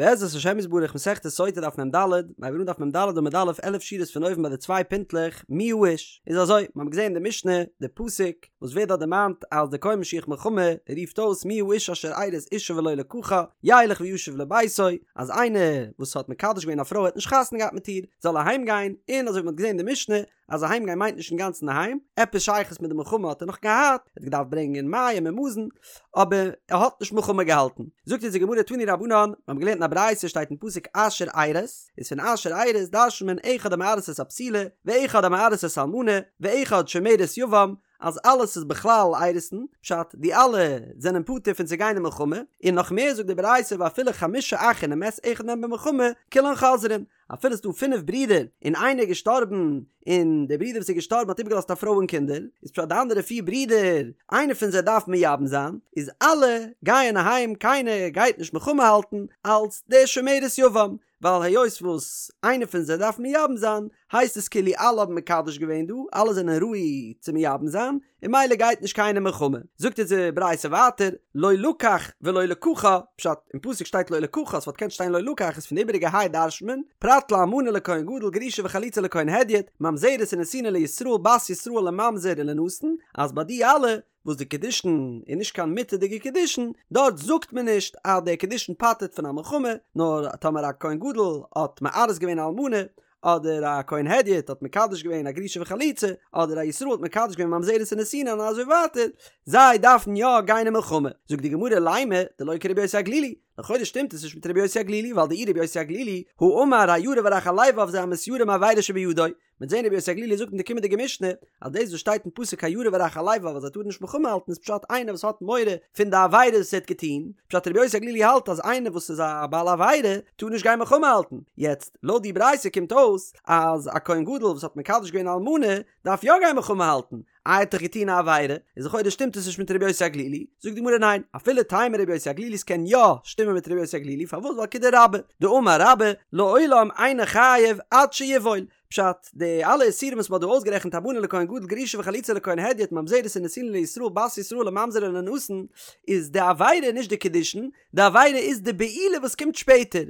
בעזרת השם יתברך מסכת סוטה דף מ ד, מיר הייבן אן דף מ ד עמוד א' 11 שורות פון אויבן ביי די צוויי פינטלעך מי האיש, איז אזוי, מיר האבן געזען אין די משנה די פסוק וואס ווערט דארט דערמאנט אז די כהן משוח מלחמה רופט אויס מי האיש אשר ארש אשה ולא לקחה ילך וישוב לביתו, אז איינער וואס האט מקדש געווען א פרוי האט נישט חתונה געהאט מיט איר זאל אהיים גיין, און אזוי ווי מען האט געזען אין די משנה אז אהיים גיין מיינט נישט אינגאנצן אהיים, עפעס שייכות מיט די מלחמה האט ער נאך געהאט, ער האט געדארפט ברענגען מים און מזון, אבער ער האט נישט מלחמה געהאלטן. זאגט אונז די גמרא תנו רבנן, מיר האבן געלערנט אין א ברייתא שטייט אין פסוק אשר ארש, איז פון אשר ארש דרש'נט מען אחד המארס את הבתולה, ואחד המארס את האלמנה, ואחד שומרת יבם, אז אלעס איז בכלל אירוסין, פשט די אלע זענען פטור פון צו גיין אין מלחמה, און נאך מער זאגט די ברייתא ואפילו חמשה אחין ומת אחד מהם במלחמה, כולן חוזרין, אפילו ס'דא פינף ברידער און איינער איז געשטארבן און דער ברודער וואס איז געשטארבן האט איבערגעלאזט א פרוי און קינדער, איז פשט די אנדערע פיר ברידער איינער פון זיי דארף מייבם זיין, איז אלע גייען אהיים קיינער גייט נישט מלחמה האלטן אלס דער שומרת יבם, ווייל היות וואס איינער פון זיי דארף מייבם זיין הייסט עס כאילו אלע האבן מקדש געווען דא, אלע זענען ראוי צו מייבם זיין, און ממילא גייט נישט קיינער מלחמה. זאגט אונז די ברייתא ווייטער, לא לקח ולא לקחה, פשט, אין פסוק שטייט לא לקחה, ס'וואלט געקענט שטיין לא לקח, איז פון די איבעריגע היי דרש'נט מען, פרט לאלמנה לכהן גדול גרושה וחלוצה לכהן הדיוט, ממזרת ונתינה לישראל בת ישראל לממזר ולנתין, אז ביי די אלע וואס די קידושין איז נישט קיין מותר'דיגע קידושין, דארט זאגט מען נישט אז דער קידושין פטר'ט פון א מלחמה, נאר טאמער א כהן גדול האט מארס געווען א אלמנה, אדער א כהן הדיוט האט מקדש געווען א גרושה וחלוצה, אדער א ישראל האט מקדש געווען ממזרת און נתינה און אזוי ווייטער, זיי דארפן יא גיין אין מלחמה. זאגט די גמרא לימא דלא כרבי יוסי הגלילי, לכאורה שטימט עס נישט מיט רבי יוסי הגלילי, ווייל דאי רבי יוסי הגלילי הא אמר הירא ורך הלבב זה המתיירא מעבירה שבידו, מ'וועט זען רבי יוסי הגלילי זאגט אין די קומענדיגע משנה אז דאס וואס שטייט אין פסוק הירא ורך הלבב אז ער טאר נישט מלחמה האלטן איז פשט איינער וואס האט מורא פון די עבירות וואס ער האט געטון, פשט רבי יוסי הגלילי האלט אז איינער וואס איז א בעל עבירה טאר נישט גיין מלחמה האלטן, יעצט לויט די ברייתא קומט אויס אז א כהן גדול וואס האט מקדש געווען א אלמנה דארף יא גיין מלחמה האלטן, איי ער האט דאך געטון א עבירה, איז לכאורה שטימט עס נישט מיט רבי יוסי הגלילי, זאגט די גמרא ניין, אפילו תימא רבי יוסי הגלילי ס'קען יא שטימען מיט רבי יוסי הגלילי פארוואס ווייל כדרבה דאמר רבה לעולם אינו חייב עד שיבעול, פשט, די אלע איסורים וואס מ'האט דא אויסגערעכנט אלמנה לכהן גדול גרושה וחלוצה לכהן הדיוט ממזרת ונתינה לישראל בת ישראל לממזר ולנתין איז די עבירה נישט די קידושין, די עבירה איז די בעילה וואס קומט שפעטער.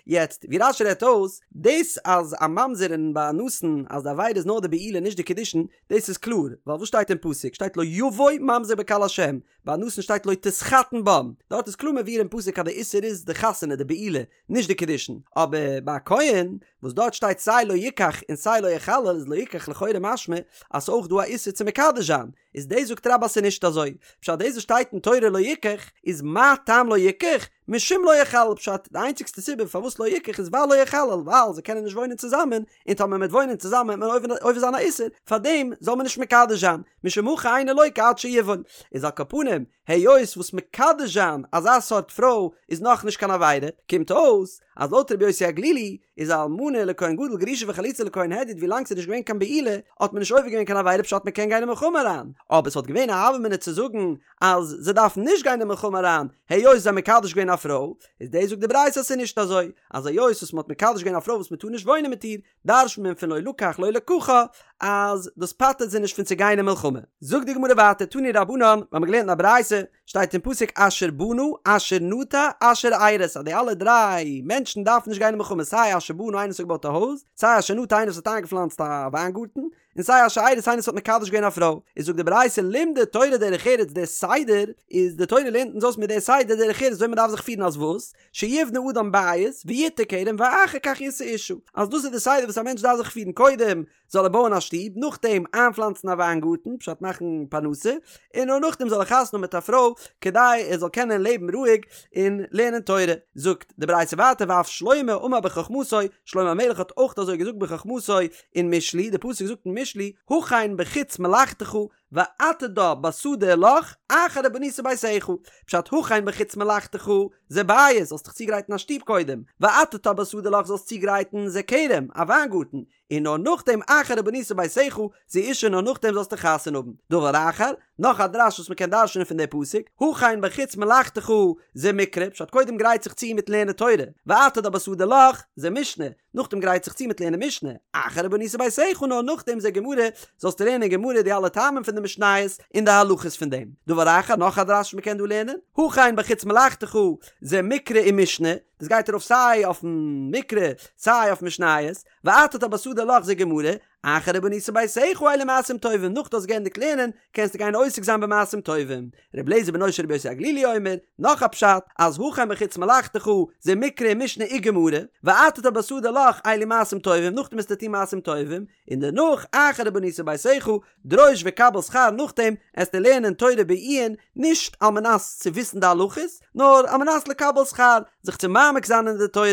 יעצט, ווי רש"י רעדט אויס, דאס אז א ממזר און ביי א נתין אז די עבירה איז נאר די בעילה נישט די קידושין, דאס איז קלאר, ווייל וואס שטייט אין פסוק? שטייט לא יבוא ממזר בקהל השם, ביי א נתין שטייט לא תתחתן בם, דארט איז קלאר מבואר אין פסוק אז די איסור איז די חתונה, די בעילה, נישט די קידושין, אבער ביי א כהן וואס דארט שטייט סיי לא יקח און סיי לא יחלל איז לא יקח לכאורה משמע אז ס'אויך דא א איסור צו מקדש זיין, איז דאס זאגט רבה אז ס'איז נישט אזוי, פשט דאס וואס שטייט אין תורה לא יקח איז מה טעם לא יקח? משום לא יחלל פשט די איינציגסטע סיבה פארוואס לא יקח איז ווייל לא יחלל ווייל זיי קענען נישט וואוינען צוזאמען און טאמער מ'וועט וואוינען צוזאמען וועט מען עובר זיין א איסור פארדעם זאל מען נישט מקדש זיין משום הכי אינו לוקה עד שיבעול איז על כל פנים היות וואס מקדש זיין אזא סארט פרוי איז נאכנישט קיין עבירה, קומט אויס אז לויט רבי יוסי הגלילי איז א אלמנה לכהן גדול גרושה וחלוצה לכהן הדיוט ווילאנג ס'איז נישט געווען קיין בעילה האט מען נישט עובר געווען קיין עבירה פשט מ'קען גיין אין מלחמה אריין, אבער ס'וואלט געווען א הוה אמינא צו זאגן אז זיי דארפן נישט גיין אין מלחמה אריין היות זיי האבן מקדש געווען א פרוי, איז דאס זאגט די ברייתא אז ס'איז נישט אזוי אז היות וואס מ'האט מקדש געווען א פרוי וואס מ'טאר נישט וואוינען מיט איר דרש'נט מען פון לא לקח לא לקחה אז דאס פטר'ט זיי נישט פון צו גיין אין מלחמה. זאגט די גמרא ווייטער תנו רבנן, מיר האבן געלערנט אין א ברייתא, שטייט אין פסוק אשר בנה אשר נטע אשר ארש אז די אלע דריי מענטשן דארפן נישט גיין אין מלחמה סיי אשר בנה איינער וואס האט געבויט א הויז, סיי אשר נטע איינער וואס האט איינגעפלאנצט א וויינגארטן, און סיי אשר ארש איינער וואס האט מקדש געווען א פרוי. איז זאגט די ברייתא לימדה תורה דרך ארץ דער סדר איז די תורה לערנט אונז אויס מיט דער סדר דרך ארץ וויאזוי מען דארף זיך פירן אז וואס? שיבנה אדם בית ויטע כרם ואחר כך ישא אשה, אז דאס איז די סדר וואס א מענטש דארף זיך פירן קודם זאל ער בויען א שטוב נאכדעם איינפלאנצן א וויינגארטן פשט מאכן פרנסה און נאר נאכדעם זאל ער חתונה האבן מיט א פרוי כדי ער זאל קענען לעבן רואיג און לערנען תורה. זאגט די ברייתא ווייטער ואף שלמה אמר בחכמתו, שלמה המלך האט אויך אזוי געזאגט בחכמתו אין משלי, די פסוק זאגט אין משלי, הכן בחוץ מלאכתך ועתדה בשדה לך אחר ובנית ביתך, פשט הכן בחוץ מלאכתך זה בית, זאלסט דיך צוגרייטן א שטוב קודם, ועתדה בשדה לך זאלסט צוגרייטן זה כרם, א וויינגארטן, און נאר נאכדעם אחר ובנית ביתך זו אשה נאר נאכדעם זאלסטו חתונה האבן. דבר אחר, נאך א דרש וואס מ'קען דרש'נען פון די פסוק, הכן בחוץ מלאכתך זה מקרא, פשט קודם גרייט זיך צו מיט לערנען תורה, ועתדה בשדה לך זה משנה, נאכדעם גרייט זיך צו מיט לערנען משנה, אחר ובנית ביתך נאר נאכדעם זה גמרא, זאלסטו לערנען גמרא די אלע טעמים פון די משניות און די הלכות פון דעם. דבר אחר, נאך א דרש וואס מ'קען דא לערנען, הכן בחוץ מלאכתך, זה מקרא ומשנה, דאס גייט ארויף סיי אויפן מקרא סיי אויף משניות, ועתדת בשדה לך זה גמרא, אחר ובנית ביתך אלו מעשים טובים, נאך דו האסט געענדיגט לערנען קענסטו גיין עוסק זיין במעשים טובים. ר' אליעזר בנו של רבי יוסי הגלילי אומר, נאך א פשט, אז הכן בחוץ מלאכתך, זה מקרא ומשנה וגמרא, ועתדת בשדה לך אלו מעשים טובים, נאכדעם וועסטו טון מעשים טובים, און דערנאך אחר ובנית ביתך, דרוש וקבל שכר נאכדעם עסטו לערנען תורה בעיון, נישט על מנת צו וויסן די הלכות, נאר על מנת לקבל שכר, זיך צו מעמיק זיין אין די תורה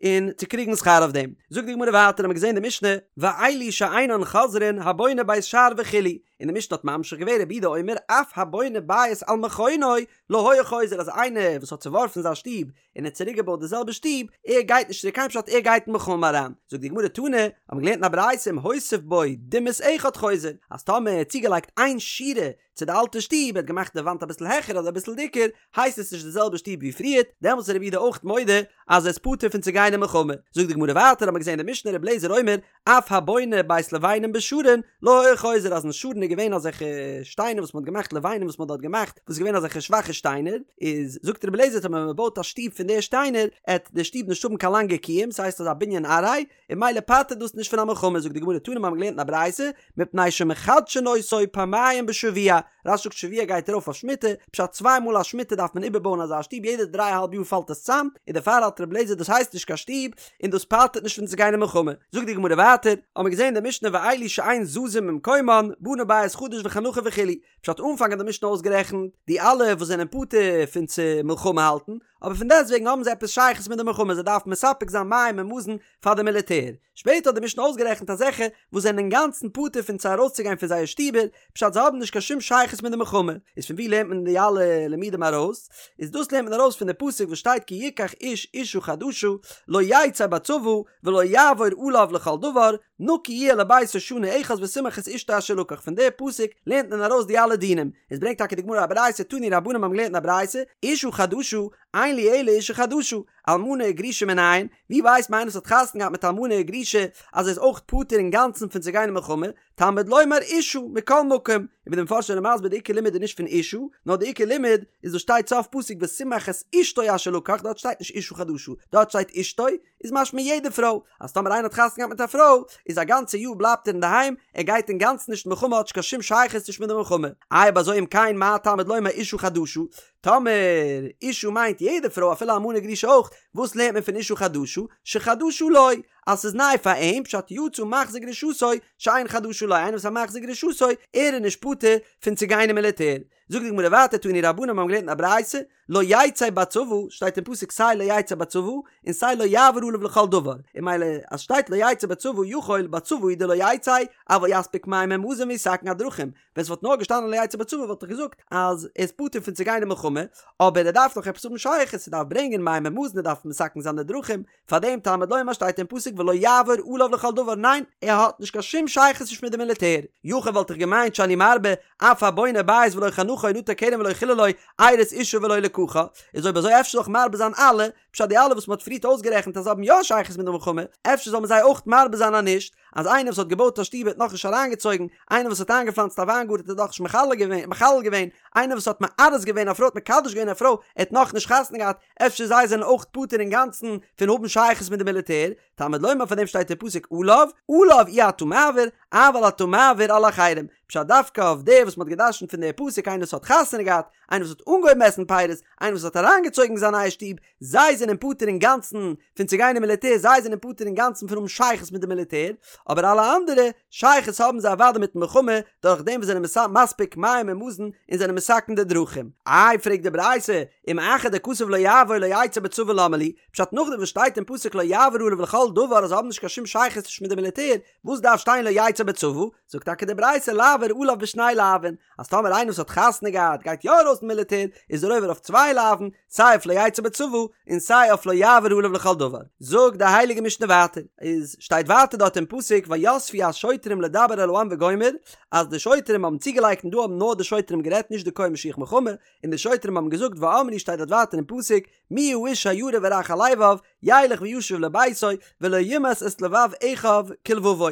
און צו קריגן שכר אויף דעם. זאגט די גמרא ווייטער האבן מיר געזען די משנה, ואלו שאינן חוזרין הבונה בית שער וכו', און די משנה האט ממשיך געווען רבי יהודה אומר אף הבונה בית על מכונו לא היה חוזר אז איינער וואס האט צעווארפן זיין שטוב און האט צוריק געבויט די זעלבע שטוב, ער גייט נישט צוריק היים פשט ער גייט אין מלחמה אריין. זאגט די גמרא תנא, האבן מיר געלערנט אין א ברייתא אם הוסיף בו דימוס אחד חוזר, אז טאמער ער האט צוגעלייגט איין שורה צו די אלטע שטוב, ער האט געמאכט די וואנט אביסל העכער אדער אביסל דיקער, הייסט עס נישט די זעלבע שטוב ווי פריערט, דעמאלטס איז רבי יהודה אויך מודה אז ער איז פטור פון צו גיין אין מלחמה. זאגט די גמרא ווייטער האבן מיר געזען אין די משנה רבי אליעזר אומר, אף הבונה בית לבנים בשרון לא היה חוזר אז אין שרון איז געווען אזעלכע שטיינער וואס מען האט געמאכט לבנים וואס מען האט דארט געמאכט וואס איז געווען אזעלכע שוואכע שטיינער איז זאגט רבי אליעזר טאמער מען בויט א שטוב פון די שטיינער עט די שטוב נישט האבן קיין לאנגע קיום ס'הייסט אזא בנין עראי און ממילא פטר'ט דאס נישט פון א מלחמה זאגט די גמרא תנא מיר האבן געלערנט אין א ברייתא מפני שמחדשין אותו פעמיים בשבוע רש"י זאגט שבוע גייט ארויף אויף שמיטה, פשט צוויי מאל א שמיטה דארף מען איבערבויען אזא שטוב יעדע דריי אהאלב יאר פאלט עס צאם, און דערפאר האלט רבי אליעזר דאס הייסט נישט קיין שטוב, און דאס פטר'ט נישט פון צו גיין אין מלחמה. זאגט די גמרא ווייטער, האמיר געזען אין די משנה ואלו שאין זזים ממקומן, בנה בית חדש וחנכו וכו', פשט אנפאנג האט די משנה אויסגערעכנט די אלע וואס זענען פטור פון צו מלחמה האלטן, אבער פון דעסטוועגן האבן זיי עפעס שייכות מיט די מלחמה זיי דארפן מספק זיין מים און מזון פאר די מיליטער. שפעטער האט די משנה אויסגערעכנט אזעלכע וואס זענען אינגאנצן פטור פון צו ארויסצוגיין פון זייער שטיבער, פשט זיי האבן נישט קיין שום שייכות מיט די מלחמה. איז פון וואו לערנט מען די אלע לימודים ארויס? איז דאס לערנט מען ארויס פון די פסוק וואס שטייט כי יקח איש אשה חדשה לא יצא בצבא ולא יעבור עליו לכל דבר נקי יהיה לביתו שנה אחת ושמח את אשתו אשר לקח פון די פסוק לערנט מען ארויס די אלע דינים. עס ברענגט טאקע די גמרא א ברייתא תנו רבנן האבן געלערנט אין א ברייתא אשה חדשה אין לי אלא אשה חדשה אלמנה וגרושה מנין, ווי ווייסט מען איינער וואס האט חתונה געהאט מיט אלמנה וגרושה אז ער איז אויך פטור אינגאנצן פון צו גיין אין מלחמה, תלמוד לומר אשה מכל מקום, און ווי די מפרשים זענען מסביר די עיקר לימוד איז נישט פון אשה, נאר די עיקר לימוד איז וואס שטייט סוף פסוק ושמח את אשתו אשר לקח, דארט שטייט נישט אשה חדשה, דארט שטייט אשתו, איז משמע יעדע פרוי, אז טאמער איינער האט חתונה געהאט מיט א פרוי, איז א גאנצע יאר בלייבט ער אינדערהיים, ער גייט אינגאנצן נישט אין מלחמה האט נישט קיין שום שייכות נישט מיט די מלחמה. איי אויב אזוי אם כן מה תלמוד לומר אשה חדשה, טאמער אשה מיינט יעדע פרוי אפילו אלמנה גרושה אויך, וואס לערנט מען פון אשה חדשה? שחדשה לו, אז ס'איז ניי פאר אים, פשט יצא מחזיר גרושתו שאין חדשה לו, איינער וואס איז א מחזיר גרושתו, ער איז נישט פטור פון צו גיין אין מיליטער. זאגט די גמרא ווייטער תנו רבנן מיר האבן געלערנט אין א ברייתא, לא יצא בצבא, שטייט אין פסוק סיי לא יצא בצבא, און סיי לא יעבור עליו לכל דבר, און ממילא אז שטייט לא יצא בצבא יכול בצבא הוא דלא יצא, אבל יספיק מים ומזון ויתקן הדרכים, ווען ס'וואלט נאר געשטאנען לא יצא בצבא וואלט איך געזאגט אז ער איז פטור פון צו גיין אין מלחמה, אבער ער דארף נאך עפעס האבן שייכות, ער דארף ברענגען מים ומזון, ער דארף מתקן זיין די דרכים, פארדעם תלמוד לומר שטייט אין פסוק ולא יעבור עליו לכל דבר, ניין, ער האט נישט קיין שום שייכות נישט מיט די מיליטער. יכול וואלט איך געמיינט שאני מרבה, אף הבונה בית ולא חנכו נטע כרם ולא חיללו, ארש אשה ולא לקחה, איז אויב אזוי אפשר זאל איך מרבה זיין אלע, פשט די אלע וואס מ'האט פריערט אויסגערעכנט אז זיי האבן יא שייכות מיט די מלחמה, אפשר זאל מען זיי אויך מרבה זיין אז נישט, אז איינער וואס האט געבויט א שטוב האט נאכנישט אריינגעצויגן, איינער וואס האט איינגעפלאנצט א וויינגארטן האט נאכנישט מחלל געווען מחלל געווען, איינער וואס האט מארס געווען א פרוי האט מקדש געווען א פרוי, ער האט נאכנישט חתונה געהאט, אפשר זיי זענען אויך פטור אינגאנצן פון האבן שייכות מיט די מיליטער, תלמוד לומר פאר דעם שטייט אין פסוק עליו, עליו אי אתה מעביר, אבל אתה מעביר על אחרים, פשט דווקא אויף דער וואס מ'האט געדרשנט פון דער פסוק איינער וואס האט חתונה געהאט, איינער וואס האט אנגעהויבן עסן פירות, איינער וואס האט אריינגעצויגן זיין נייע שטוב, זיי זענען פטור אינגאנצן פון צו גיין אין מיליטער, זיי זענען פטור אינגאנצן פון האבן שייכות מיט די מיליטער, אבער אלע אנדערע, שייכות האבן זיי אוודאי מיטן מלחמה, דורך דעם וואס זענען מספיק מים און מזון און זענען מתקן די דרכים. איי פרעגט די ברייתא, אם אחר דכתב לא יעבור לא יצא בצבא למה לי, פשט נאכדעם וואס שטייט אין פסוק לא יעבור עליו לכל דבר אז זיי האבן נישט קיין שום שייכות נישט מיט די מיליטער, וואס דארף שטיין לא יצא בצבא? זאגט טאקע די ברייתא לעבור עליו בשני לאווין, אז טאמער איינער וואס האט חתונה געהאט גייט יא ארויס אין מיליטער, איז ער עובר אויף צוויי לאווין, סיי אויף לא יצא בצבא, און סיי אויף לא יעבור עליו לכל דבר. זאגט די הייליגע משנה ווייטער, איז שטייט ווייטער דארט אין פסוק ויספו השוטרים לדבר אל העם וגומר, אז די שוטרים האבן צוגעלייגט און דא האבן נאר די שוטרים גערעדט נישט די כהן משוח מלחמה, און די שוטרים האבן געזאגט ואמרו שטייט דארט ווייטער אין פסוק מי האיש הירא ורך הלבב, ילך וישוב לביתו ולא ימס את לבב אחיו כלבבו.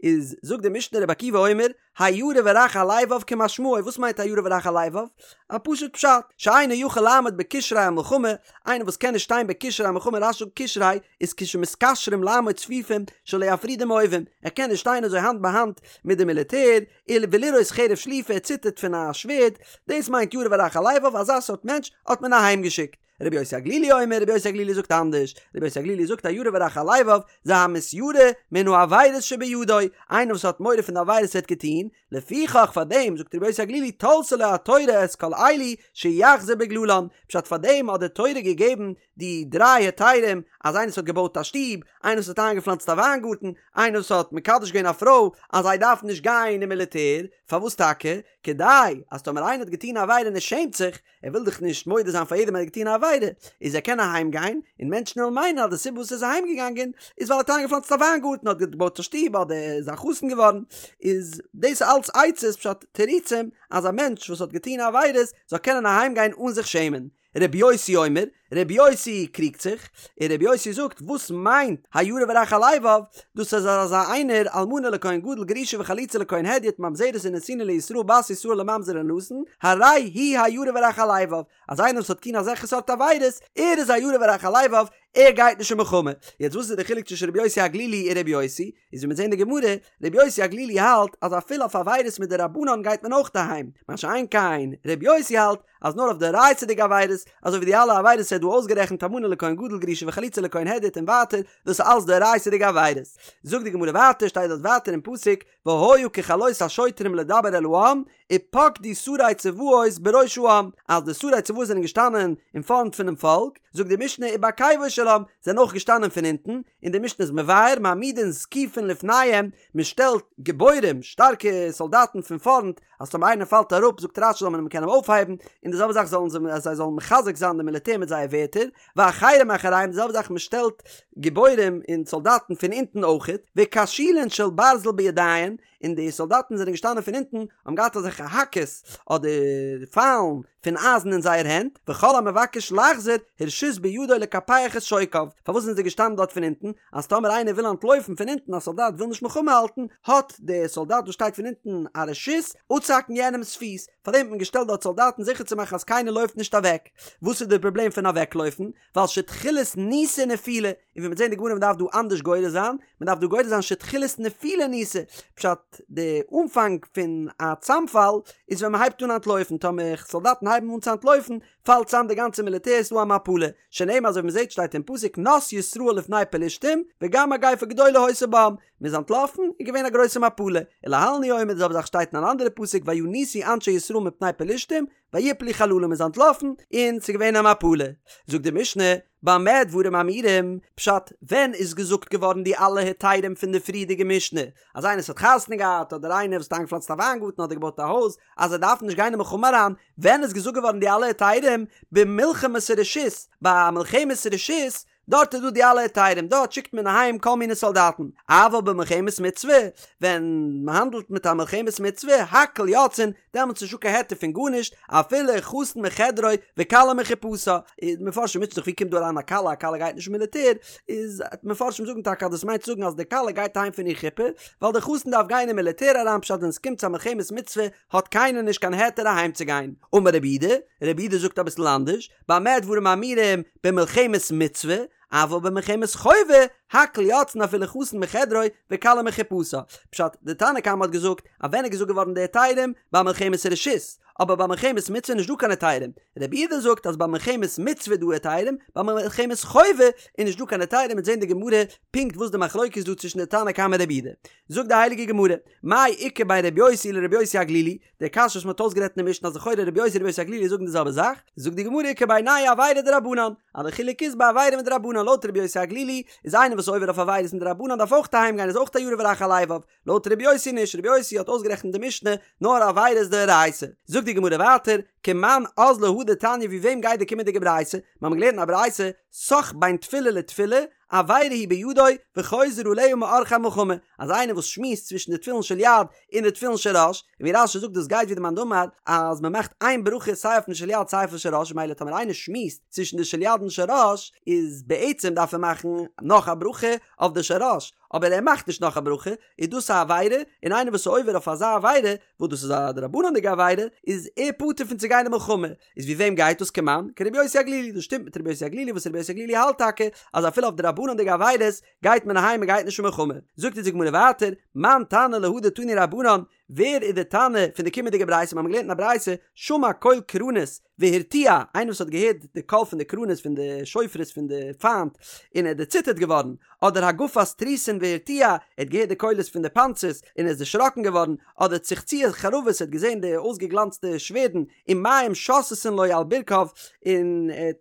איז זאגט די משנה רבי עקיבא אומר, הירא ורך הלבב כמשמעו, וואס מיינט הירא ורך הלבב? א פשוט פשט, שאינו יכול לעמוד בקשרי המלחמה, איינער וואס קען נישט שטיין בקשרי המלחמה, רש"י זאגט קשרי איז כשמתקשרים לעמוד צפופים שלא יפרידום האויבים, ער קען נישט שטיין אזוי האנט ביי האנט מיט די מיליטער, ולראות חרב שלופה, ער ציטערט פון א שווערד, דאס מיינט ירא ורך הלבב, אזא סארט מענטש האט מען אהיים געשיקט. רבי יוסי הגלילי אומר, רבי יוסי הגלילי זאגט אנדערש, רבי יוסי הגלילי זאגט הירא ורך הלבב, זה המתיירא מן העבירות שבידו, איינער וואס האט מורא פון די עבירות ער האט געטון, לפיכך פאר דעם זאגט רבי יוסי הגלילי תלתה לו התורה את כל אלו שיחזור בגללן, פשט פאר דעם האט די תורה געגעבן די דריי היתרים, אז איינער וואס האט געבויט א שטוב, איינער וואס האט איינגעפלאנצט א וויינגארטן, איינער וואס האט מקדש געווען א פרוי, אז זיי דארפן נישט גיין אין מיליטער, פארוואס טאקע? כדי אז טאמער איינער האט געטון א עבירה און ער שעמט זיך, ער וויל דאך נישט מודה זיין פאר יעדעם אז ער האט געטון א עבירה, איז ער קען אהיים גיין, און מענטשן וועלן מיינען אז די סיבה וואס ער איז אהיים געגאנגען איז ווייל ער האט איינגעפלאנצט א וויינגארטן, האט געבויט א שטוב, אדער איז א חתן געווארן, איז דאס אלץ עצות פשט תירוצים אז א מענטש וואס האט געטון עבירות זאל קענען אהיים גיין אן זיך שעמען. רבי יוסי אומר, רבי יוסי קריגט זיך, און רבי יוסי זאגט, וואס מיינט הירא ורך הלבב, דאס איז אזא איינער, אלמנה לכהן גדול גרושה וחלוצה לכהן הדיוט ממזרת ונתינה לישראל בת ישראל לממזר ולנתין, הרי הוא הירא ורך הלבב, אז איינער וואס האט געטון אזעלכע סארט עבירות, ער איז הירא ורך הלבב, ער גייט נישט אין מלחמה. יעצט וואס איז די חילוק צווישן רבי יוסי הגלילי און רבי יוסי? איז ווי מיר זעהן אין די גמרא, רבי יוסי הגלילי האלט אז אפילו אויף עבירות מדרבנן גייט מען אויך אהיים, מה שאין כן רבי יוסי האלט אז נאר אויף דאורייתא'דיגע עבירות, אזוי ווי די אלע עבירות ער האט דא אויסגערעכנט אלמנה לכהן גדול גרושה וחלוצה לכהן הדיוט און ווייטער, דאס איז אלס דאורייתא'דיגע עבירות. זאגט די גמרא ווייטער, שטייט דארט ווייטער אין פסוק, והיה ככלות השוטרים לדבר אל העם, ופקדו שרי צבאות בראש העם, אז די שרי צבאות זענען געשטאנען אין פארנט פונעם פאלק, זאגט די משנה ובעקבו של עם, זענען אויך געשטאנען פון הינטן, און די משנה איז מבאר, מעמידין זקיפין לפניהם, מען שטעלט גיבורים, שטארקע סאלדאטן פון פארנט, אז טאמער איינער פאלט אראפ, זאגט רש"י זאל מען אים קענען אויפהייבן, און די זעלבע זאך זאלן זיי, אז זיי זאלן מחזק זיין די מיליטער מיט זייער ווערטער, ואחרים מאחוריהם, די זעלבע זאך מען שטעלט גיבורים און סאלדאטן פון אונטן אויכעט, וקשילין של ברזל בידיהן, און די סאלדאטן זענען געשטאנען פון אונטן, האבן געהאט אזעלכע האקעס אדער פיילן פון אייזן אין זייער הענט, וכל המבקש לחזור, הרשות בידו לקפח את שוקיו, פארוואס זענען זיי געשטאנען דארט פון אונטן? אז טאמער איינער וויל אנטלויפן פון אונטן, א סאלדאט וויל נישט מלחמה האלטן, האט דער סאלדאט וואס שטייט פון אונטן א רשות אפצוהאקן יענעמ'ס פיס, פארדעם האט מען געשטעלט דארט סאלדאטן זיכער צו מאכן אז קיינער לויפט נישט אוועק. וואס איז דער פראבלעם פון אוועקלויפן? ווייל שתחילת ניסה נפילה, און ווי מ'וועט זען די גמרא מ'דארף דא אנדערש גורס זיין, מ'דארף דא גורס זיין שתחילת נפילה ניסה, פשט די אנפאנג פון א צאמפאל איז ווען מ'הייבט אן אנטלויפן, טאמער סאלדאטן הייבן אן צו אנטלויפן פאלט צאם די גאנצע מיליטער ס'דא א מפלה, שנאמר אזוי ווי מ'זעט שטייט אין פסוק נס ישראל לפני פלשתים וגם מגיפה גדולה היתה בם, מ'איז אנטלאפן איז געווען א גרויסע מפלה, ולהלן הוא אומר די זעלבע זאך שטייט אין אן אנדערע פסוק וינוסו אנשי ישראל מפני פלשתים ויפלו חללה מ'איז אנטלאפן און ס'איז געווען א מפלה. זאגט די משנה, במה דברים אמורים, פשט, ווען איז געזאגט געווארן די אלע היתרים פון די פריערדיגע משנה, אז איינער וואס האט חתונה געהאט, אדער איינער וואס האט איינגעפלאנצט א וויינגארטן אדער געבויט א הויז, אז זיי דארפן נישט גיין אין מלחמה אריין, ווען איז געזאגט געווארן די אלע היתרים, במלחמת רשות, ביי א מלחמת רשות, דארט איז דא די אלע היתרים, דארט שיקט מען אהיים כל מיני סאלדאטן, אבל במלחמת מצוה, ווען מען האנדלט מיט א מלחמת מצוה, הכל יוצאין, דעמאלטס איז נישטא קיין היתר פון גארנישט, אפילו חתן מחדרו וכלה מחופתה, איז מפרשים מוטשען זיך ווי קומט דא אריין א כלה, א כלה גייט נישט אין מיליטער, איז מפרשים זאגן טאקע אז דאס מיינט צו זאגן אז די כלה גייט אהיים פון איר חופה, ווייל די חתן דארף גיין אין מיליטער אריין פשט ווען עס קומט צו א מלחמת מצוה האט קיינער נישט קיין היתר אהיים צו גיין. אמר רב יהודה, רב יהודה זאגט אביסל אנדערש, במה דברים אמורים במלחמת מצוה, אבל במלחמת חובה, הכל יוצאין אפילו חתן מחדרו וכלה מחופתה. פשט, די תנא קמא האט געזאגט אז ווען איז געזאגט געווארן די היתרים? ביי מלחמת רשות, אבער ביי מלחמת מצוה איז נישט דא קיין היתרים. רב יהודה זאגט אז ביי מלחמת מצוה איז דא היתרים, ביי מלחמת חובה איז נישט דא קיין היתרים, מ'וועט זען די גמרא פונקט וואס די מחלוקת איז דא צווישן די תנא קמא און רב יהודה. זאגט די הייליגע גמרא, מאי איכא בין רבי יוסי לרבי יוסי הגלילי, די קשיא וואס מ'האט אויסגערעדט אין די משנה אז לכאורה רבי יוסי און רבי יוסי הגלילי זאגן די זעלבע זאך, זאגט די גמרא איכא בינייהו עבירה דרבנן, אז די חילוק איז ביי עבירה מדרבנן, לויט רבי יוסי הגלילי איז איינער וואס איז עובר אויף עבירות מדרבנן דארף אויך אהיים גיין איז אויך א ירא ורך הלבב, לויט רבי יוסי נישט, רבי יוסי האט אויסגערעכנט אין די משנה נאר עבירות דאורייתא. זאגט די גמרא ווייטער, כמאן אזלא הא דתניא ווי וועם גייט די קומענדיגע ברייתא? מיר האבן געלערנט אין א ברייתא, סח בין תפילה לתפילה, עבירה היא בידו וחוזר עליה מעורכי המלחמה, אז איינער וואס שמועסט צווישן די תפילין של יד און די תפילין של ראש, און ווי רש"י זאגט דאס גייט ווי די מאן דאמר אז מען מאכט איין ברכה סיי אויפן של יד סיי אויפן של ראש, ממילא טאמער איינער שמועסט צווישן די של יד און של ראש איז בעצם דארף ער מאכן נאך א ברכה אויף די של ראש, אבער ער מאכט נישט נאך א ברכה, איז דאס א עבירה, און איינער וואס איז עובר אויף אזא עבירה, וואס דאס איז א דרבנן'דיגע עבירה, איז ער פטור פון צו גיין אין מלחמה. איז ווי וועם גייט דאס כמאן? כרבי יוסי הגלילי, דאס שטימט מיט רבי יוסי הגלילי וואס רבי יוסי הגלילי האלט טאקע אז אפילו אויף דרבנן'דיגע עבירות גייט מען אהיים מען גייט נישט אין מלחמה. זאגט אונז די גמרא ווייטער, מאן תנא להא דתנו רבנן, ווער איז די תנא פון די קומענדיגע ברייתא? מיר האבן געלערנט אין א ברייתא, שמע קול קרנות והרתיע, איינער וואס האט געהערט די קול פון די קרנות פון די שופרות פון די פיינט און ער איז דערציטערט געווארן, אדער הגפת תריסין והרתיע, ער האט געהערט די קולות פון די פאנצערס און ער איז דערשראקן געווארן, אדער צחצוח חרבות, ער האט געזען די אויסגעגלאנצטע שווערדן ומים שותתין לו על ברכיו, און ער האט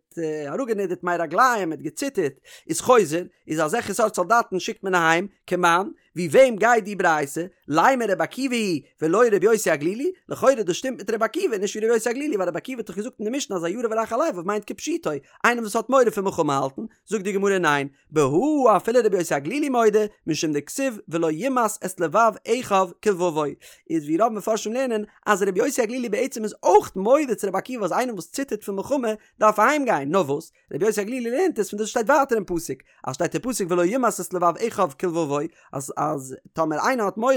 אראפגענידערט מי רגליים, ער האט געציטערט, איז חוזר, איז אזעלכע סארט סאלדאטן שיקט מען אהיים, כמאן, ווי וועם גייט די ברייתא? לימא רבי עקיבא היא ולא רבי יוסי הגלילי? לכאורה דאס שטימט מיט רבי עקיבא נישט ווי רבי יוסי הגלילי ווייל רבי עקיבא האט דאך געזאגט אין די משנה אז הירא ורך הלבב מיינט כפשוטו איינער וואס האט מורא פון מלחמה האלטן, זאגט די גמרא ניין, בהא אפילו רבי יוסי הגלילי מודה משום דכתיב ולא ימס את לבב אחיו כלבבו איז ווי רוב מפרשים לערנען אז רבי יוסי הגלילי בעצם איז אויך מודה צו רבי עקיבא אז איינער וואס ציטערט פון מלחמה דארף אהיים גיין, נאר וואס? רבי יוסי הגלילי לערנט עס פון דאס שטייט ווייטער אין פסוק, אז שטייט אין פסוק ולא ימס את לבב אחיו כלבבו, אז אז טאמער איינער האט מורא,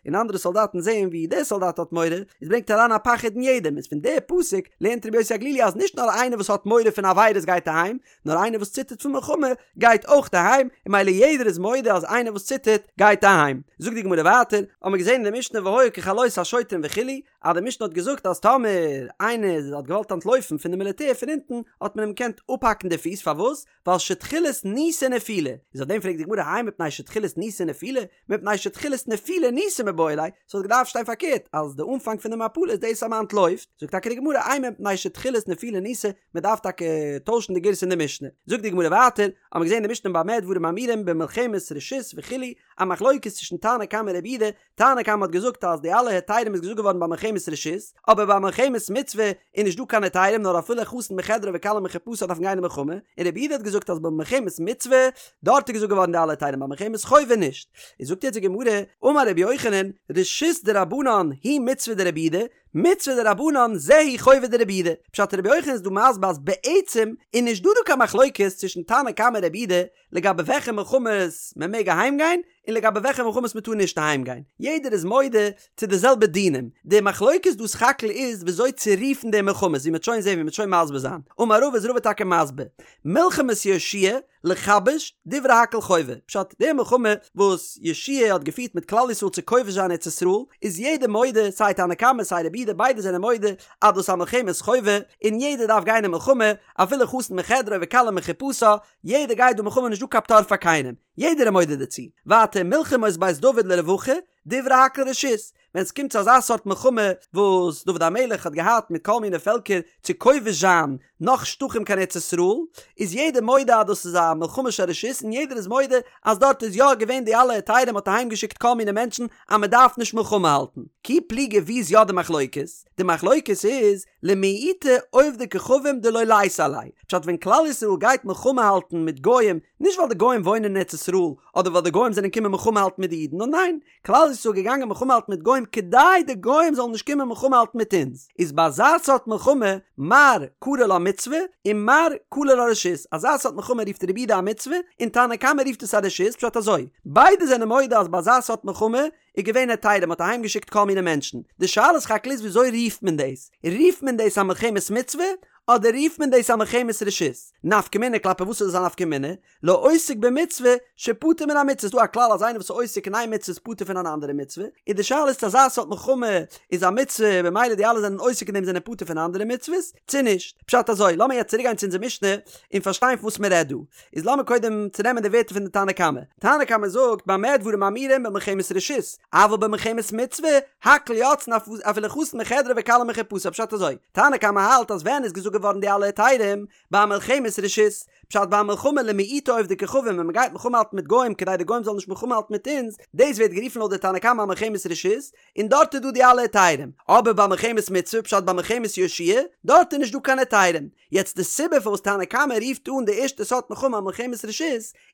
און אנדערע סאלדאטן זעען ווי דער סאלדאט האט מורא, איז ברענגט אריין א פחד אין יעדעם, איז פון דער פסוק לערנט רבי יוסי הגלילי אז נישט נאר איינער וואס האט מורא פון עבירות גייט אהיים, נאר איינער וואס ציטערט פון מלחמה גייט אויך אהיים, און ממילא יעדער איז מודה אז איינער וואס ציטערט גייט אהיים. זאגט די גמרא ווייטער, האבן מיר געזען אין די משנה והיה ככלות השוטרים וכו', אז די משנה האט געזאגט אז טאמער איינער האט געוואלט אנטלויפן פון די מיליטער פון אונטן האט מען אים געקענט אפהאקן די פיס פארוואס? ווייל שתחילת ניסה נפילה, איז אויף דעם פרעגט די גמרא האי מפני שתחילת ניסה נפילה, מפני שתחילת נפילה ניסה מיבעי ליה, ס'וואלט געדארפט שטיין פארקערט אז די אנפאנג פון די מפלה איז דאס אז מען אנטלויפט, זאגט טאקע די גמרא אימא מפני שתחילת נפילה ניסה, מען דארף טאקע טוישן די גירסא אין די משנה, זאגט די גמרא ווייטער, האבן מיר געזען אין די משנה במה דברים אמורים במלחמת רשות וכו', א מחלוקת צווישן תנא קמא און רבי יהודה, תנא קמא האט געזאגט אז די אלע היתרים איז געזאגט געווארן ביי מלחמת רשות, אבער ביי מלחמת מצוה איז נישט דא קיין היתרים נאר אפילו חתן מחדרו וכלה מחופתה דארפן גיין אין מלחמה, און רבי יהודה האט געזאגט אז ביי מלחמת מצוה דארט איז געזאגט געווארן די אלע היתרים ביי מלחמת חובה נישט. איז זאגט יעצט די גמרא, אמר רבי יוחנן, רשות דרבנן היא מצוה דרבי יהודה, מצוה דרבנן זו היא חובה דרבי יהודה. פשט רבי יוחנן איז דא מסביר אז בעצם איז נישט דא דא קיין מחלוקת צווישן תנא קמא און רבי יהודה לגבי וועלכע מלחמות מען מעג אהיים גיין און לגבי וועלכע מלחמות מען טאר נישט אהיים גיין, יעדער איז מודה צו די זעלבע דינים, די מחלוקת דא סך הכל איז וויאזוי צו רופן די מלחמות, ווי מען וועט שוין זען ווי מען וועט שוין מסביר זיין, אמר רבא איז רבא טאקע מסביר, מלחמת יהושע לכבש דברי הכל חובה, פשט די מלחמה וואס יהושע האט געפירט מיט כלל ישראל צו כובש זיין ארץ ישראל, איז יעדער מודה סיי תנא קמא סיי רבי יהודה ביידע זענען מודה אז דאס איז א מלחמת חובה און יעדער דארף גיין אין מלחמה אפילו חתן מחדרו וכלה מחופתה, יעדער גייט דא מלחמה נישט דא קיין פטור פאר קיינעם, יעדער איז מודה דערצו. ווייטער מלחמות בית דוד לרווחה, דברי הכל רשות, ווען ס'קומט צו אזא סארט מלחמה וואס דוד המלך האט געהאט מיט כל מיני פעלקער צו כובש זיין נאך שטחים קיין ארץ ישראל, איז יעדער מודה אז דאס איז א מלחמה של רשות און יעדער איז מודה אז דארט איז יא געווען די אלע היתרים מ'האט אהיים געשיקט כל מיני מענטשן אז מ'דארף נישט מלחמה האלטן. כי פליגי ווי איז יא די מחלוקת? די מחלוקת איז למעוטי עובדי כוכבים דלא ליתי עלייהו, פשט ווען כלל ישראל גייט מלחמה האלטן מיט גוים, נישט ווייל די גוים וואוינען אין ארץ ישראל, אדער ווייל די גוים זענען קומען מלחמה האלטן מיט די אידן, נאר ניין, כלל ישראל איז געגאנגען מלחמה האלטן מיט גוים כדי די גוים זאלן נישט קומען מלחמה האלטן מיט אונז, איז ביי אזא סארט מלחמה מר קרי לה מצוה און מר קרי לה רשות, אזא סארט מלחמה רופט רבי יהודה א מצוה און תנא קמא רופט עס א רשות, פשט אזוי, ביידע זענען מודה אז ביי אזא סארט מלחמה איז געווען היתרים, מ'האט אהיים געשיקט כל מיני מענטשן. די שאלה סך הכל איז וויאזוי רופט מען דאס? רופט מען דאס א מלחמת מצוה אדער רופט מען דאס א מלחמת רשות? נפקא מינה כלפי וואס איז עס א נפקא מינה? לעוסק במצוה שפטור מן המצוה ס'דא א כלל אז איינער וואס איז עוסק אין איין מצוה איז פטור פון אן אנדערע מצוה, און די שאלה איז צו אזא סארט מלחמה איז א מצוה במילא די אלע זענען עוסק אין דעם זענען פטור פון אנדערע מצוות צו נישט. פשט אזוי, לאמיר יעצט צוריק גיין צו אונזער משנה און פארשטיין פון וואס מען רעדט דא. איז לאמיר קודם צונעמען די ווערטער פון די תנא קמא. תנא קמא זאגט במה דברים אמורים במלחמת רשות, אבל במלחמת מצוה, הכל יוצאין אפילו חתן מחדרו וכלה מחופתה פשט אזוי, תנא קמא האלט אז ווען איז געזאגט געווארן די אלע היתרים? ביי מלחמת רשות, פשט ביי א מלחמה למעוטי עובדי כוכבים ווען מען גייט מלחמה האלטן מיט גוים כדי די גוים זאלן נישט מלחמה האלטן מיט אונז, דאס ווערט גערופן לויט די תנא קמא א מלחמת רשות, און דארט איז דא די אלע היתרים, אבער ביי מלחמת מצוה פשט ביי מלחמת יהושע דארט איז נישט דא קיין היתרים, יעצט די סיבה פארוואס תנא קמא רופט אן די ערשטע סארט מלחמה א מלחמת רשות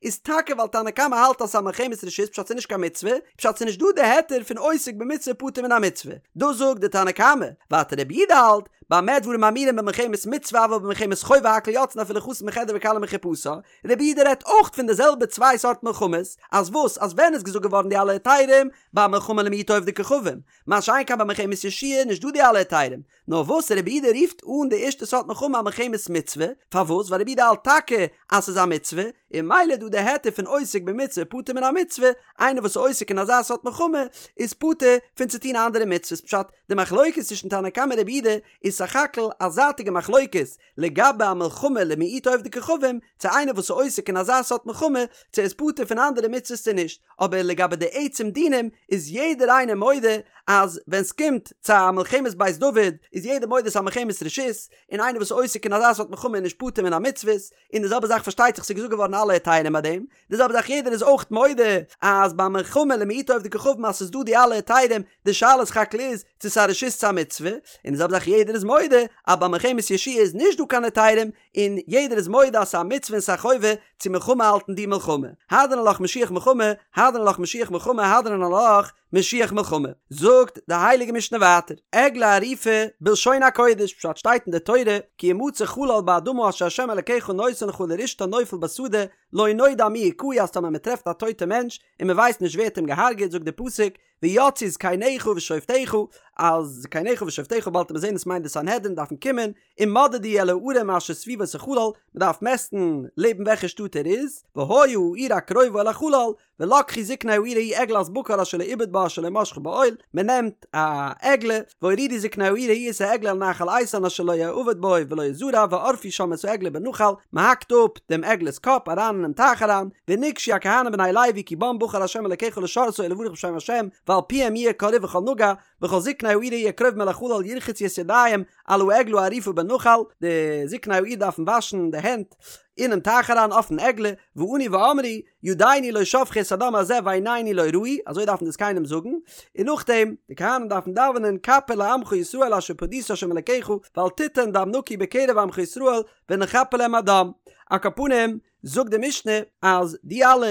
איז טאקע ווייל תנא קמא האלט אז ס'איז א מלחמת רשות פשט ס'איז נישט קיין מצוה, פשט ס'איז נישט דא די היתר פון עוסק במצוה פטור מן המצוה, דאס זאגט די תנא קמא, ווייטער רבי יהודה האלט, במה דברים אמורים במלחמת מצוה אבל במלחמת חובה הכל יוצאין אפילו חתן מחדרו וכלה מחופתה, רבי יהודה רעדט אויך פון די זעלבע צוויי סארט מלחמות, אז וואס אז ווען איז געזאגט געווארן די אלע היתרים? ביי מלחמה למעוטי עובדי כוכבים, מה שאין כן ביי מלחמת יהושע נישט דא די אלע היתרים, נאר וואס רבי יהודה רופט אן די ערשטע סארט מלחמה א מלחמת מצוה, פארוואס? ווייל רבי יהודה האלט טאקע אז ס'איז א מצוה, און ממילא איז דא די היתר פון עוסק במצוה פטור מן המצוה, איינער וואס איז עוסק אין אזא סארט מלחמה איז פטור פון צו טון אנדערע מצוות, פשט, די מחלוקת צווישן תנא קמא און רבי יהודה איז סך הכל א זייטיגע מחלוקת לגבי א מלחמה למעוטי עובדי כוכבים, צו איינער וואס איז עוסק אין אזא סארט מלחמה צו ער איז פטור פון אנדערע מצוות צו נישט, אבער לגבי די עצם דינים איז יעדער איינער מודה אז ווען סקומט צו א מלחמת בית דוד איז יעדער מודה ס'איז א מלחמת רשות, און איינער וואס איז עוסק אין אזא סארט מלחמה איז נישט פטור מן המצוות, און די זעלבע זאך פארשטייט זיך ס'איז געזאגט געווארן אלע היתרים ביי דעם, די זעלבע זאך יעדער איז אויך מודה אז ביי מלחמה למעוטי עובדי כוכבים אז ס'איז דא די אלע היתרים, די שאלה סך הכל איז צו ס'איז א רשות צו א מצוה, און די זעלבע זאך יעדער איז מודה אז ביי מלחמת יהושע איז נישט דא קיין היתרים, און יעדער איז מודה אז ס'איז א מצוה און ס'איז א חובה צו מלחמה האלטן די מלחמה. הדרן עלך משוח מלחמה, הדרן עלך משוח מלחמה, הדרן עלך משוח מלחמה. זאגט די הייליגע משנה ווייטער, עגלה ערופה בלשון הקודש, פשט שטייט אין די תורה, כי ימצא חלל באדמה אשר ה' אלקיך נותן לך לרשתה נופל בשדה, לא נודע מי הכהו אז טאמער מען טרעפט א טויטע מענטש און מען ווייסט נישט ווער האט אים געהארגעט זאגט די פסוק ויצאו זקניך ושופטיך אז זקניך ושופטיך באלד וועט מען זען עס מיינט די סנהדרין דארפן קומען ומדדו אל הערים אשר סביבות החלל מען דארף מעסטן לעבן וועלכע שטאט ער איז והיה העיר הקרובה אל החלל ולקחו זקני העיר ההיא עגלת בקר אשר לא עובד בה אשר לא משכו בעול, מען נעמט א עגלה, והורידו זקני העיר ההיא את העגלה אל נחל איתן אשר לא יעבד בו ולא יזרע וערפו שם את העגלה בנחל, מען האקט אפ דעם עגלה'ס קאפ אריין אינעם טייך אריין, ונגשו הכהנים בני לוי כי בם בחר ה' אלקיך לשרתו ולברך בשם ה', ועל פיהם יהיה כל ריב וכל נגע, וכל זקני העיר ההיא הקרובים אל החלל ירחצו את ידיהם על העגלה הערופה בנחל, די זקני העיר דארפן וואשן די הענט אינעם טייך אריין אויפן עגלה, וענו ואמרו, ידינו לא שפכו את הדם הזה ועינינו לא ראו, אזוי דארפן די זקנים זאגן, און נאכדעם, די כהנים דארפן דאווענען כפר לעמך ישראל אשר פדית ה' אלקיך, ואל תתן דם נקי בקרב עמך ישראל, ונכפר להם הדם. על כל פנים, זאגט די משנה אז די אלע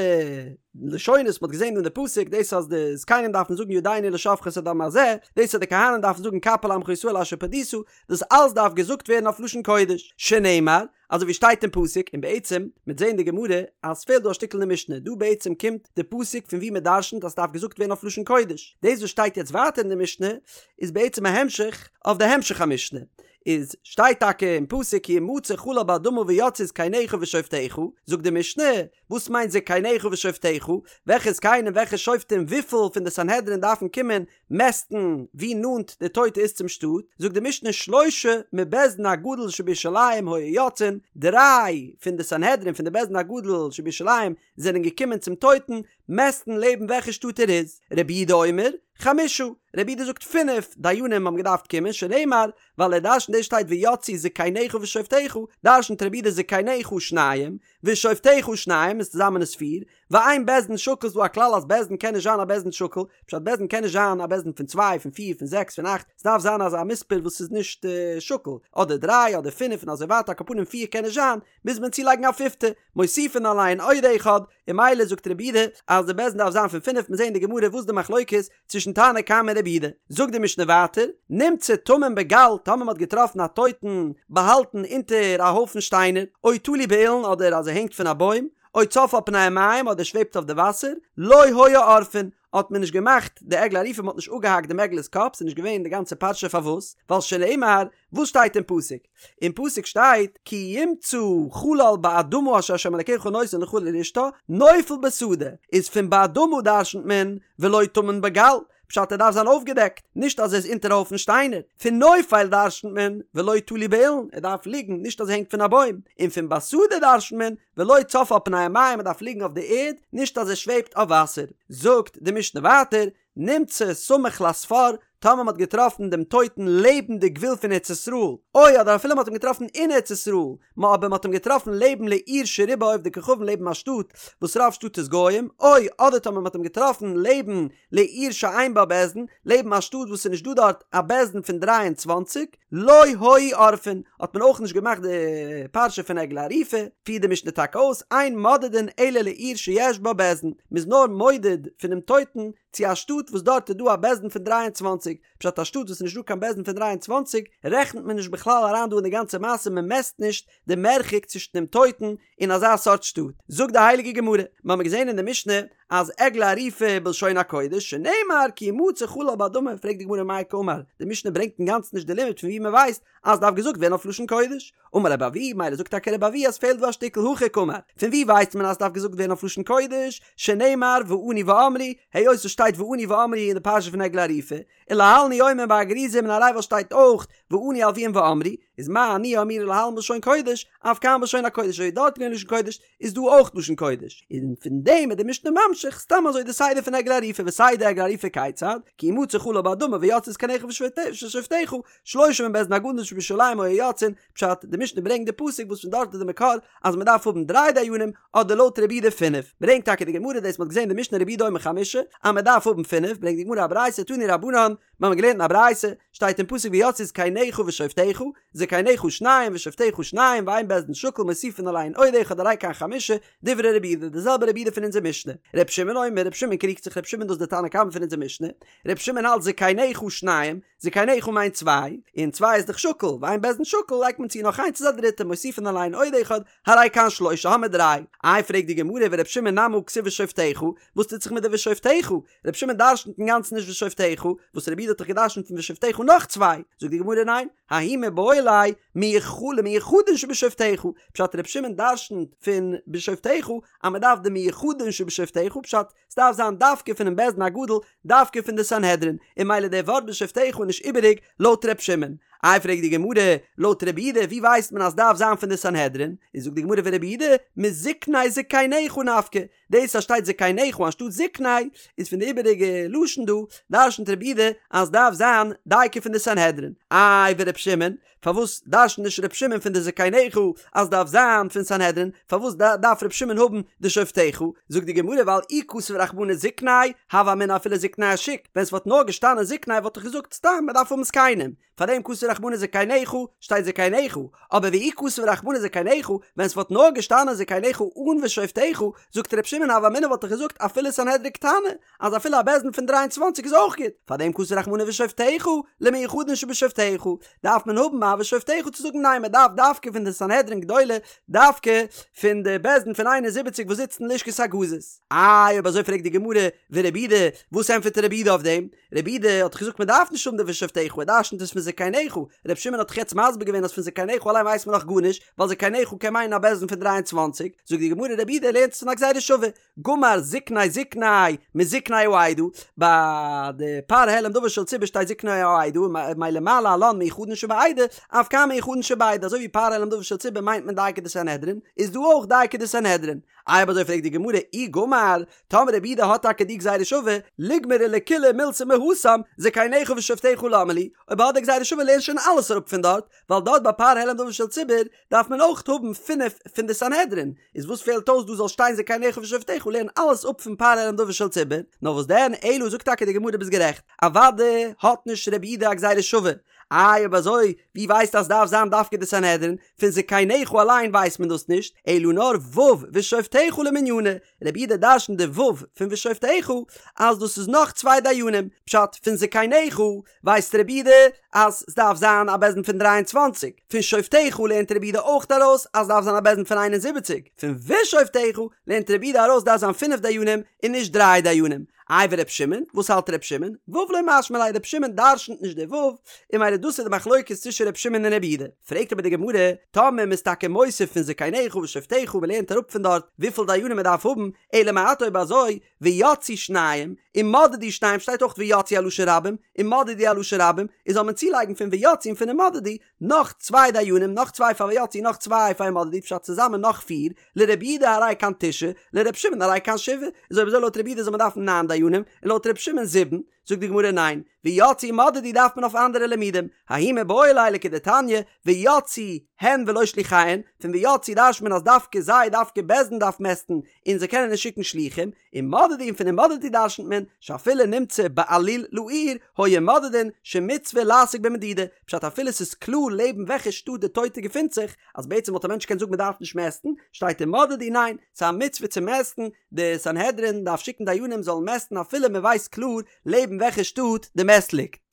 לשונות מ'האט געזען אין די פסוק, דאס אז די זקנים דארפן זאגן ידינו לא שפכו את הדם הזה, דאס אז די כהנים דארפן זאגן כפר לעמך ישראל אשר פדית, דאס אלס דארף געזאגט ווערן אויף לשון קודש, שנאמר, אזוי ווי שטייט אין פסוק, און בעצם, מ'עט זעהן די גמרא אז ס'פעלט דא א שטיקל אין די משנה, דא בעצם קומט די פסוק פון ווי מ'דרשנ'ט אז ס'דארף געזאגט ווערן אויף לשון קודש, דאס וואס שטייט יעצט ווייטער אין די משנה איז בעצם א המשך אויף די המשך המשנה, איז שטייט טאקע אין פסוק כי ימצא חלל באדמה ויצאו זקניך ושופטיך, זאגט די משנה, וואס מיינט זקניך ושופטיך? וועלכע זקנים וועלכע שופטים וויפיל פון די סנהדרין דארפן קומען מעסטן ווי נאנט די טויטע איז צום שטאט, זאגט די משנה שלשה מבית דין הגדול שבירושלים היו יוצאין, דריי פון די סנהדרין פון די בית דין הגדול שבירושלים זענען געקומען צום טויטן מעסטן לעבן וועלכע שטאט ער איז, רבי יהודה אומר, חמשה, רבי יהודה זאגט פינף דיינים האבן געדארפט קומען, שנאמר, ווייל ער דרשנט דאס שטייט ויצאו זקניך ושופטיך, דרשנט רבי יהודה זקניך שניים, ושופטיך שניים איז צוזאמען איז פיר, ואין בית דין שקול ס'דא א כלל אז בית דין קען נישט זיין א בית דין שקול, פשט בית דין קען נישט זיין א בית דין פון צוויי פון פיר פון זעקס פון אכט, ס'דארף זיין אזא מספר וואס איז נישט שקול, אדער דריי אדער פינף און אזוי ווייטער על כל פנים פיר קען נישט זיין, מוז מען צולייגן א פיפטע, מוסיפין עליהן עוד אחד, און ממילא זאגט רבי יהודה אז די בית דין דארף זיין פון פינף, מיר זעהן אין די גמרא וואס די מחלוקת צווישן תנא קמא און רבי יהודה. זאגט די משנה ווייטער, נמצא טמון בגל, טאמער מ'האט געטראפן א טויטן באהאלטן אונטער א הויפן שטיינער, או תלוי באילן אדער אז ער הענגט פון א בוים, או צף על פני המים אדער שוועבט אויף די וואסער, לא היו עורפין, האט מען נישט געמאכט די עגלה ערופה, מ'האט נישט אפגעהאקט דעם עגלה'ס קאפ, ס'איז נישט געווען די גאנצע פרשה פארוואס, ווייל שנאמר, וואס שטייט אין פסוק? אין פסוק שטייט כי ימצא חלל באדמה אשר ה' אלקיך נותן לך לרשתה נופל בשדה, איז פון באדמה דרשנ'ט מען ולא טמון בגל, פשט ער דארף זיין אויפגעדעקט, נישט אז ער איז אונטער א הויפן שטיינער, פון נופל דרשנ'ט מען ולא תלוי באילן, ער דארף ליגן, נישט אז ער הענגט פון א בוים, און פון בשדה דרשנ'ט מען ולא צף על פני המים ער דארף ליגן אויף די ערד, נישט אז ער שוועבט אויף וואסער. זאגט די משנה ווייטער, נמצא סמוך לספר, טאמער מ'האט געטראפן דעם טויטן לעבן די גבול פון ארץ ישראל, או אדער אפילו מ'האט אים געטראפן אין ארץ ישראל, מ אבער מ'האט אים געטראפן לעבן לעיר שרובה עובדי כוכבים לעבן א שטאט וואס רוב שטאט איז גוים, או אדער טאמער מ'האט אים געטראפן לעבן לעיר שאין בה בית דין, לעבן א שטאט וואס ס'איז נישט דא דארט א בית דין פון 23, לא היו עורפין, האט מען אויך נישט געמאכט די פרשה פון עגלה ערופה, פירט די משנה טאקע אויס, אין מודדין אלא לעיר שיש בה בית דין, מ'איז נאר מודד פונעם טויטן צו א שטאט וואס דארט איז דא א בית דין פון 23, פשט א שטאט וואס איז נישט דא קיין בית דין פון 23 רעכנט מען נישט בכלל אריין דא אין די גאנצע מעשה מען מעסט נישט די מרחק צווישן דעם טויטן און אזא סארט שטאט. זאגט די הייליגע גמרא, מיר האבן געזען אין די משנה אז עגלה ערופה בלשון הקודש שנאמר כי ימצא חלל באדמה, פרעגט די גמרא מאי קאמר, די משנה ברענגט אינגאנצן נישט די לימוד פון ווי מען ווייסט אז דארף געזאגט ווערן אויף לשון קודש, אמר רבי אבהו, מילא זאגט טאקע רבי אבהו אז פעלט דא א שטיקל הכי קאמר, פון ווי ווייסט מען אז דארף געזאגט ווערן אויף לשון קודש, שנאמר וענו ואמרו, היות עס שטייט וענו ואמרו אין די פרשה פון עגלה ערופה, ולהלן הוא אומר בהר גריזים און הר עיבל שטייט אויך וענו הלוים ואמרו, איז מה עניה אמורה להלן בלשון קודש, אף כאן בלשון הקודש, אזוי דארט געווען לשון קודש, איז דא אויך לשון קודש, און פון דעם איז די משנה ממשיך סתם אזוי די סדר פון עגלה ערופה וסדר עגלה ערופה כיצד, כי ימצא חלל באדמה ויצאו זקניך ושופטיך, שלושה מבית דין הגדול שבירושלים היו יוצאין, פשט, די משנה ברענגט די פסוק וואס פון דארט איז די מקור אז מען דארף האבן דריי דיינים, אדער לויט רבי יהודה פינף, ברענגט טאקע די גמרא דאס מען האט געזען די משנה רבי יהודה אומר חמשה, אז מען דארף האבן פינף, ברענגט די גמרא א ברייתא תנו רבנן, מיר האבן געלערנט אין א ברייתא, שטייט אין פסוק ויצאו זקניך ושופטיך, זקניך שניים ושופטיך שניים ואין בית דין שקול מוסיפין עליהן עוד אחד הרי כאן חמשה, דברי רבי יהודה, די זעלבע רבי יהודה פון אונזער משנה. רבי שמעון אומר, רבי שמעון קריגט זיך, רבי שמעון דאס איז די תנא קמא פון אונזער משנה, רבי שמעון האלט זקניך שניים, זקניך מיינט צוויי, און צוויי איז דאך שקול, ואין בית דין שקול לייגט מען צו נאך איינס איז א דריטע, מוסיפין עליהן עוד אחד, הרי כאן שלושה האמיר דריי. איי פרעגט די גמרא ורבי שמעון נמי הא כתיב ושופטיך, וואס טוט זיך מיט די ושופטיך? רבי שמעון דרשנ'ט אינגאנצן נישט ושופטיך, וואס רבי יהודה האט דאך געדרשנ'ט פון ושופטיך נאך צוויי, זאגט די גמרא ניין, ההוא מיבעי ליה למיוחדין שבשופטיך, פשט רבי שמעון דרשנ'ט פון בשופטיך אז מען דארף די מיוחדין שבשופטיך, פשט ס'דארף זיין דווקא פונעם בית דין הגדול, דווקא פון די סנהדרין, און מילא די ווארט בשופטיך איז נישט איבעריג לויט ר' שמעון. איי פרעגט די גמרא, לויט רבי יהודה ווי ווייסט מען אז ס'דארף זיין פון די סנהדרין? איז זאגט די גמרא ורבי יהודה מזקני זקניך נפקא, דאס אז שטייט זקניך אנשטאט זקני איז פון די איבעריגע לשון דא, דרשנ'ט רבי יהודה אז ס'דארף זיין דייקא פון די סנהדרין. איי ור' שמעון, פארוואס דרשנ'ט נישט ר' שמעון פון די זקניך אז דארף זיין פון סנהדרין? פארוואס דארף ר' שמעון האבן די שופטיך? זאגט די גמרא ווייל אי כתב רחמנא זקני, הוה אמינא אפילו זקני השוק, ווען ס'וואלט נאר געשטאנען זקני וואלט איך געזאגט סתם מ'דארף האבן זקנים, פארדעם כתב רחמנא זקניך שטייט זקניך, אבער ואי כתב רחמנא זקניך, ווען ס'וואלט נאר געשטאנען זקניך אן ושופטיך, זאגט ר' שמעון הוה אמינא וואלט איך געזאגט אפילו סנהדרין קטנה, אז אפילו א בית דין פון 23 איז אויך גוט, פארדעם כתב רחמנא ושופטיך, למיוחדין שבשופטיך, דארף מען האבן א ושופטיך צו זאגן ניין מען דארף דווקא פון די סנהדרין גדולה, דווקא פון די בית דין פון 71 וואס זיצט אין לשכת הגזית. איי אויב אזוי פרעגט די גמרא, ורבי יהודה, וואס ענטפערט רבי יהודה אויף דעם? רבי יהודה האט דאך געזאגט מען דארף נישט האבן די ושופטיך, ער דרשנ'ט עס פון זקניך, רבי שמעון האט דאך יעצט מסביר געווען אז פון זקניך אליין ווייסט מען נאך גארנישט, ווייל זקניך קען מיינען א בית דין פון 23, זאגט די גמרא רבי יהודה לערנט עס פון א גזירה שווה, גמר זקני זקני מזקני העדה, ביי די פר העלם דבר של ציבור שטייט זקני העדה, מילא מה להלן מיוחדין שבעדה, אף כאן מיוחדין שבעדה, אזוי ווי פר העלם דבר של ציבור מיינט מען דייקא די סנהדרין, איז דא אויך דייקא די סנהדרין. איי אויב אזוי פרעגט די גמרא אי גמר, טאמער רבי יהודה האט טאקע די גזירה שווה, ליגמרו לכוליה מילתא מהתם, זקניך ושופטיך למה לי, אויב ער האט די גזירה שווה לערן שוין אלעס אראפ פון דארט, ווייל דארט ביי פר העלם דבר של ציבור דארף מען אויך האבן פינף פון די סנהדרין, איז וואס פעלט אויס דא זאל שטיין זקניך ושופטיך לערן אלעס אפ פון פר העלם דבר של ציבור, נאר וואס דען אלא זאגט טאקע די גמרא ביסט גערעכט, אוודאי האט נישט רבי יהודה א גזירה שווה, איי אויב אזוי ווי ווייסטו אז סדארף זיין דווקא די סנהדרין, פון זקניך אליין ווייסט מען דאס נישט, אלא נאר ו' ושופטיך למנינא, רבי יהודה דרשנט די ו' פון ושופטיך אז דאס איז נאך צוויי דיינים, פשט פון זקניך ווייסט רבי יהודה אז סדארף זיין א בית דין פון 23, פון שופטיך לערנט רבי יהודה אויך ארויס אז סדארף זיין א בית דין פון 71, פון ושופטיך לערנט רבי יהודה ארויס דארף זיין פינף דיינים און נישט דריי דיינים. איי ור' שמעון, וואס האלט ר' שמעון? ו' לא משמע ליה, ר' שמעון דרשנ'ט נישט די ו', און מילא דאס איז די מחלוקת צווישן ר' שמעון און ר' יהודה. פרעגט אבער די גמרא, טאמער מ'איז טאקע מוסיף פון זקניך ושופטיך און מ'לערנט אראפ פון דארט וויפיל דיינים מ'דארף האבן, אלא מעתה אויב אזוי, ויצאו שניים, ומדדו שניים שטייט אויך ויצאו א לשון רבים, ומדדו א לשון רבים, איז זאל מען צולייגן פון ויצאו און פון ומדדו, נאך צוויי דיינים, נאך צוויי פאר ויצאו נאך צוויי פאר ומדדו, פשט צוזאמען נאך פיר, לרבי יהודה הרי כאן תשעה, לרבי שמעון הרי כאן שבעה, איז אויב אזוי לויט רבי יהודה זאל מען דארפן ניין דיינים. דיינים, און לויט ר' שמעון זיבן, זאגט די גמרא ניין, ויצאו ומדדו דארף מען אויף אנדערע לימודים, ההוא מיבעי ליה לכדתניא, ויצאו הן ולא שליחיהן, פון ויצאו דרש'ט מען אז דווקא זיי, דווקא בית דין דארף מעסטן, און זיי קענען נישט שיקן שלוחים, ומדדו און פון ומדדו דרש'נט מען, שאפילו נמצא בעליל לעיר, היו מודדין, שמצוה לעסוק במדידה, פשט אפילו ס'איז קלאר לעבן וועלכע שטאט די טויטע געפינט זיך, אז בעצם וואלט א מענטש געקענט זאגן מ'דארף נישט מעסטן, שטייט ומדדו ניין, ס'איז א מצוה צו מעסטן, די סנהדרין דארף שיקן דיינים זאלן מעסטן אפילו מ'ווייסט קלאר לעבן וועלכע שטאט די מת ליגט.